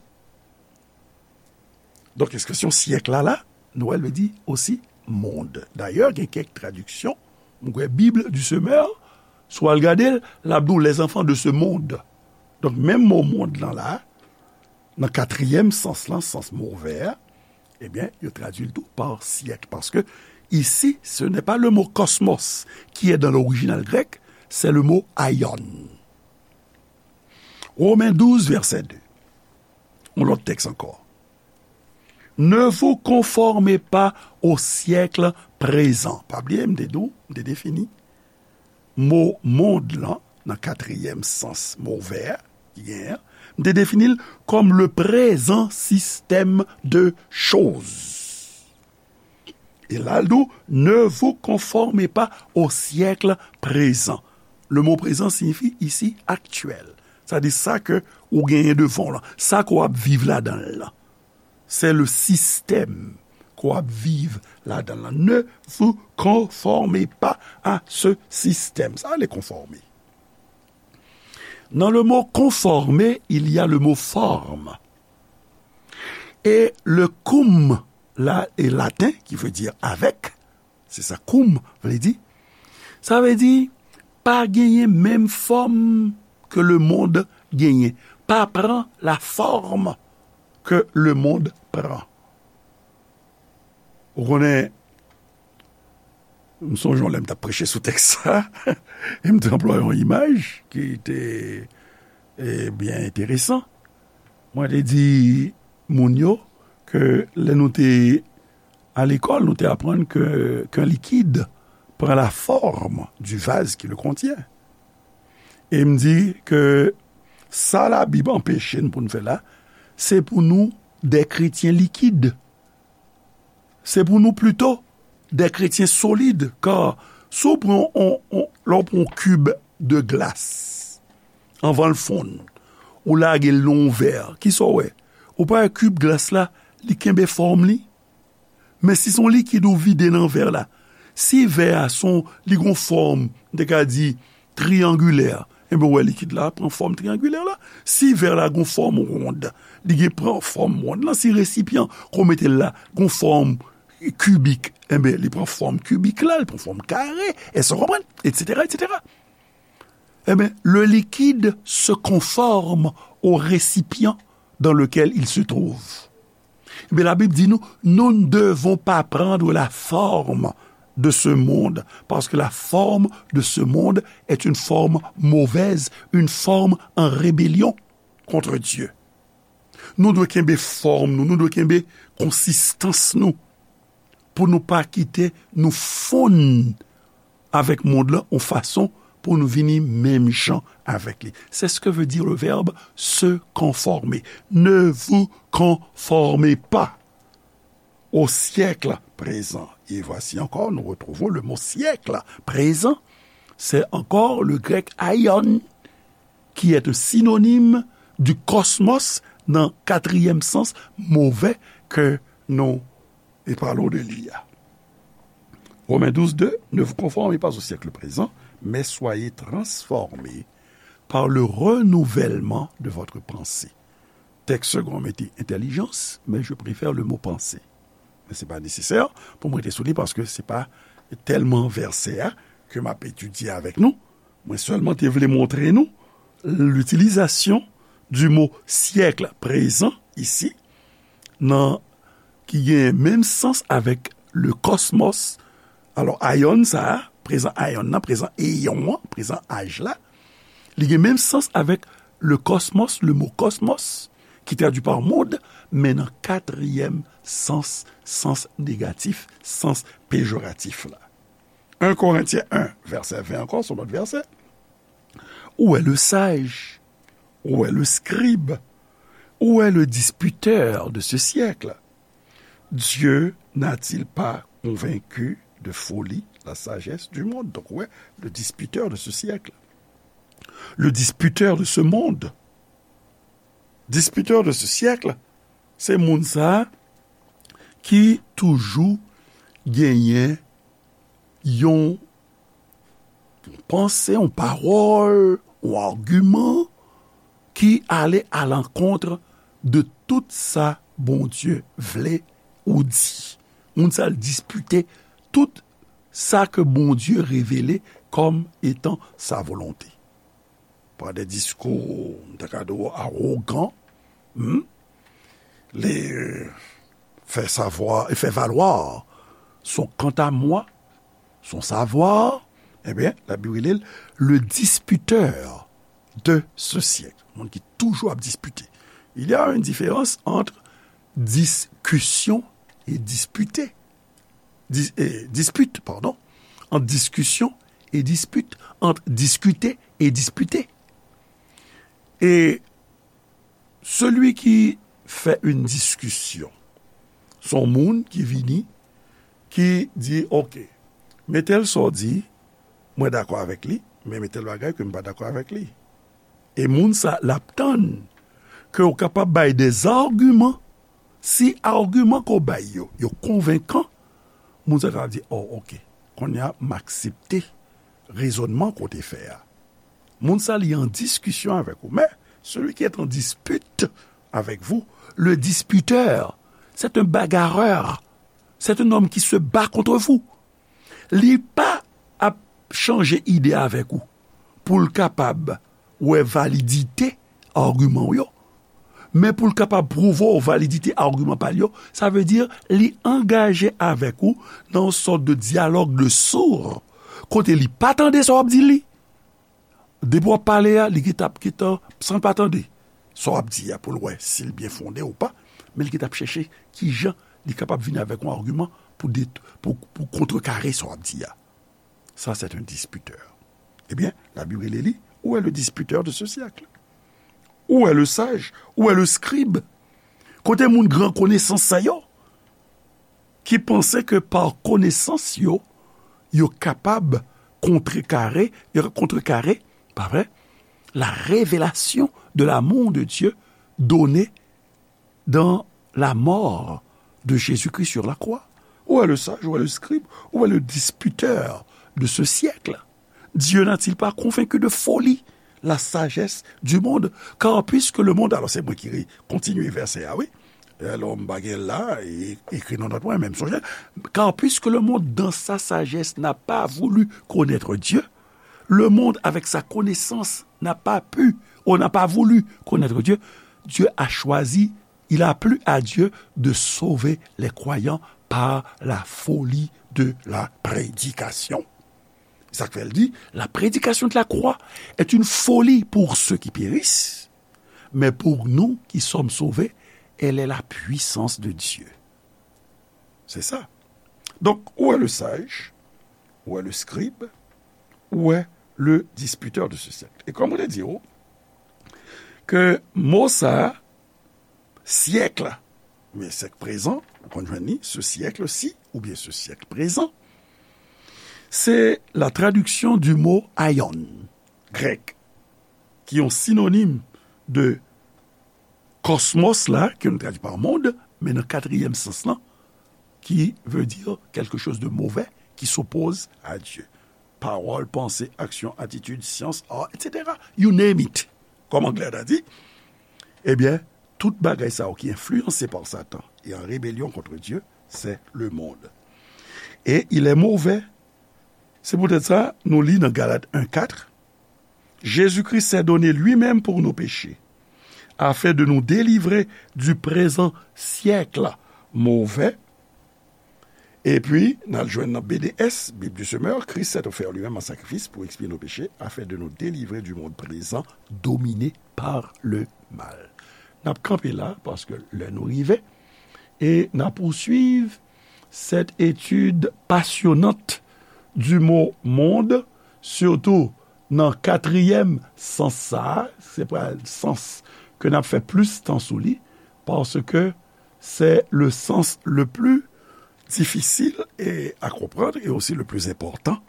Donk, ekspresyon syèk la, la, nou wè l vle di osi mond. Dayè, gen kèk tradiksyon, mwen kwè Bib du Semeur, si w al gade l, l ap di w les enfants de ce monde. Donk, menm mo mond lan la, nan katriyèm sans lan, sans mo vè a, ebyen, yo tradui l tou pa syèk, paske isi, ce n'est pas le mot cosmos qui est dans l'original grec, c'est le mot aion. Romains douze, verset deux. Yon lòt tèks ankò. Ne vous conformez pas au siècle présent. Pa bliye, m te di w, m te defini mo mond lan nan katriyèm sans mo vè ki genyen an. M te defini l kòm le présent système de choses. E la, l di w, ne vous conformez pas au siècle présent. Le mot présent signifie ici actuel. Sa di sa ke ou genyen devan w lan, sa ke w ap viv ladan l lan. C'est le système ke w ap viv ladan l lan. Ne vous conformez pas à ce système. Sa vle konfòme. Dans le mot conformer, il y a le mot forme. Et le cum la est latin, qui veut dire avec. Se sa cum vle di. Sa vle di, pa genyen menm fòm ke lemonn genyen. pas prend la forme que le monde prend. Ou konnen, m sonje yon lè m t ap preche sou tèks sa, e m te anplwaye yon imaj ki te, e, byen enteresan. Mwen te di moun yo ke lè nou te a lekòl, nou te aprann ke, qu'un liquide prend la forme du vase qui le contient. E m di ke sa Labib anpeche n pou n fè la, se pou nou des chrétiens liquides. Se pou nou plito des chrétiens solides, kar si w pran on, on, lè w pran yon kib de glas, anvan l fonn, ou lage l nan yon vè, kisa w wè? Ou pa wè kib glas la, li kenbe fòm li? Men si se yon likid ou vide nan vè la, si vè a se yon, li gon fòm, m te ka di, triyangilè, enben, w wè likid la pran fòm triyangilè la. Si vè la gon fòm wonn, li gen pran fòm wonn lan. Si resipyan ke w mete l la gon fòm kibik, enben, li pran fòm kibik la, li pran fòm kare, èske w konprann? Etsetera, etsetera. Eh bien, le liquide se conforme au récipient dans lequel il se trouve. Eh bien, la Bible dit nous, nous ne devons pas prendre la forme de ce monde, parce que la forme de ce monde est une forme mauvaise, une forme en rébellion contre Dieu. Nou dwe kenbe fòm nou, nou dwe kenbe konsistans nou, pou nou pa kite nou fonn avèk mond lan yon fason pou nou vini menm jan avèk li. C'est ce que veut dire le verbe se conformer. Ne vous conformez pas au siècle présent. Et voici encore, nous retrouvons le mot siècle présent. C'est encore le grec aion, qui est un synonyme du cosmos dans quatrième sens mauvais que nous parlons de l'I A. Romains douze deux, ne vous conformez pas au siècle présent, mais soyez transformés par le renouvellement de votre pensée. Tèks segon mete entèlijans, men je préfère le mot panse. Men se pa nesesè pou mwen rete sou li paske se pa tèlman vèsè a ke m ap etidye avèk nou. Mwen sèlman te vle montre nou l'utilisation du mot siècle présent ici, nan, ki gen menm sans avèk le cosmos. Alò, aion sa a, prezan aion nan, prezan eyon an, prezan aj la, li gen menm sans avèk le cosmos, le mot cosmos, ki tradui pa mond, men nan katriyèm sans, sans negatif, sans pejoratif la. Un Corinthiens un, vèsè ven ankò, se yon lòt vèsè. Où est le sage? Où est le scribe? Où est le disputeur de ce siècle? Dieu n'a-t-il pas convaincu de folie la sagesse du monde? Donc, ouais, le disputeur de ce siècle. Le disputeur de ce monde. Disputeur de ce siècle, se moun sa a ki toujou genyen yon panse, yon pawòl, yon agiman ki ale a lankont de tout sa Bondye vle ou di. Moun sa a dispite tout sa ke Bondye revele kòm etan sa volonte. Par des discours, m ta ka di w, awogan, hmm? Li fè savwa, li fè valwa son kantamwa, son savwa, ebyen, Labib rele l le disputeur de ce siècle. Moun ki toujou ap dispite. Il y a une différence entre discussion et disputer. Dis-, eh, dispute, pardon. Entre discussion et dispute. Entre discuter et disputer. Et celui qui fait une discussion, se yon moun ki vini, ki di, "Ok, men tèl sa w di, mwen dakò avèk li, men men tèl bagay ke m pa dakò avèk li." E moun sa, l ap tann ke w kapab bay des arguments. Si agiman ke w bay yo, yo konvenkan, moun sa kapab di, "Oh, ok, kounye a, m aksepte rezònman ke w te fè a." Moun sa, li an diskisyon avèk ou. Mais celui qui est en dispute avec vous, le disputeur, c'est un bagarreur. C'est un homme qui se bat contre vous. Li pa ap chanje ide avèk ou pou l kapab wè validite agiman w yo, men pou l kapab pwouve w validite agiman pa l yo, sa vle di li angaje avèk ou nan yon sòt de dyalòg de sourd, kote li pa tande sa w ap di li. Depi w ap pale a, li gentan, gentan, san l pa tande sa w ap di a pou l wè si l byen fonde ou pa, men li gentan ap chèche kijan li kapab vin avèk yon agiman pou, pou, pou kontrekare sa w ap di a. Ça, c'est un disputeur. Ebyen, Labib rele li, où est le disputeur de ce siècle? Où est le sage? Où est le scribe? Kote moun gran konesans sa yo ki panse ke pa konesans yo, yo kapab kontrekare, yo kontrekare, pa vre, la révélation de l'amour de Dieu donné dans la mort de Jésus-Christ sur la croix. Où est le sage, où est le scribe, où est le disputeur de ce siècle? Dieu n'a-t-il pas convaincu de folie la sagesse du monde? Car puisque le monde, alors c'est moi qui kontinye vèsè a, wi. Lè m pa gen la, e, ekri nan nòt mwen, men m sonje. Car puisque le monde, dans sa sagesse, n'a pas voulu connaître Dieu, le monde, avec sa connaissance, n'a pas pu, ou n'a pas voulu connaître Dieu, Dieu a choisi, il a plu à Dieu de sauver les croyants par la folie de la prédication. Sa k fè l di, la prédication de la croix est une folie pour ceux qui périssent, mais pour nous qui sommes sauvés, elle est la puissance de Dieu. C'est ça. Donc, où est le sage? Où est le scribe? Où est le disputeur de ce siècle? E kòm mwen te di w, ke mo sa, siècle, oubyen siècle présent, ou konn jwenn li, ce siècle-ci, oubyen ce siècle présent, c'est la traduction du mot aion, grec, qui est un synonyme de cosmos la, ke nou tradui pa monde, men nan katriyèm sans lan, qui veut dire quelque chose de mauvais, qui s'oppose à Dieu. Pawòl, panse, aksyon, atitid, syans, art, et cetera. You name it. Kòm anglè ta di, ebyen, tout bagay sa yo ki enfliyanse pa Satan e an rebelyon kont Dye, c'est le monde. Et il est mauvais. C'est peut-être ça, nou li nan Galat en quatre, Jésus-Christ s'est donné lui-même pour nos péchés, afin de nous délivrer du présent siècle mauvais. Epi, n al jwenn nan B D S, Bible du Semeur, Christ s'est offert lui-même en sacrifice pour expier nos péchés, afin de nous délivrer du monde présent dominé par le mal. N ap kanpe la, paske lè nou rive, e n ap pouswiv cette étude passionnante du mot monde, surtout nan katriyèm sans sa, se pral sans ke n ap fè plis tan sou li, paske c'est le sens le plus difficile et à comprendre et aussi le plus important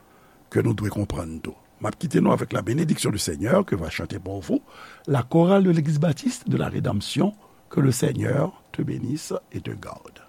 que nou dwe konprann tou. M ap kite nou avec la bénédiction du Seigneur que va chanter pour vous la chorale de l'église baptiste de la Rédemption. Que le Seigneur te bénisse et te garde.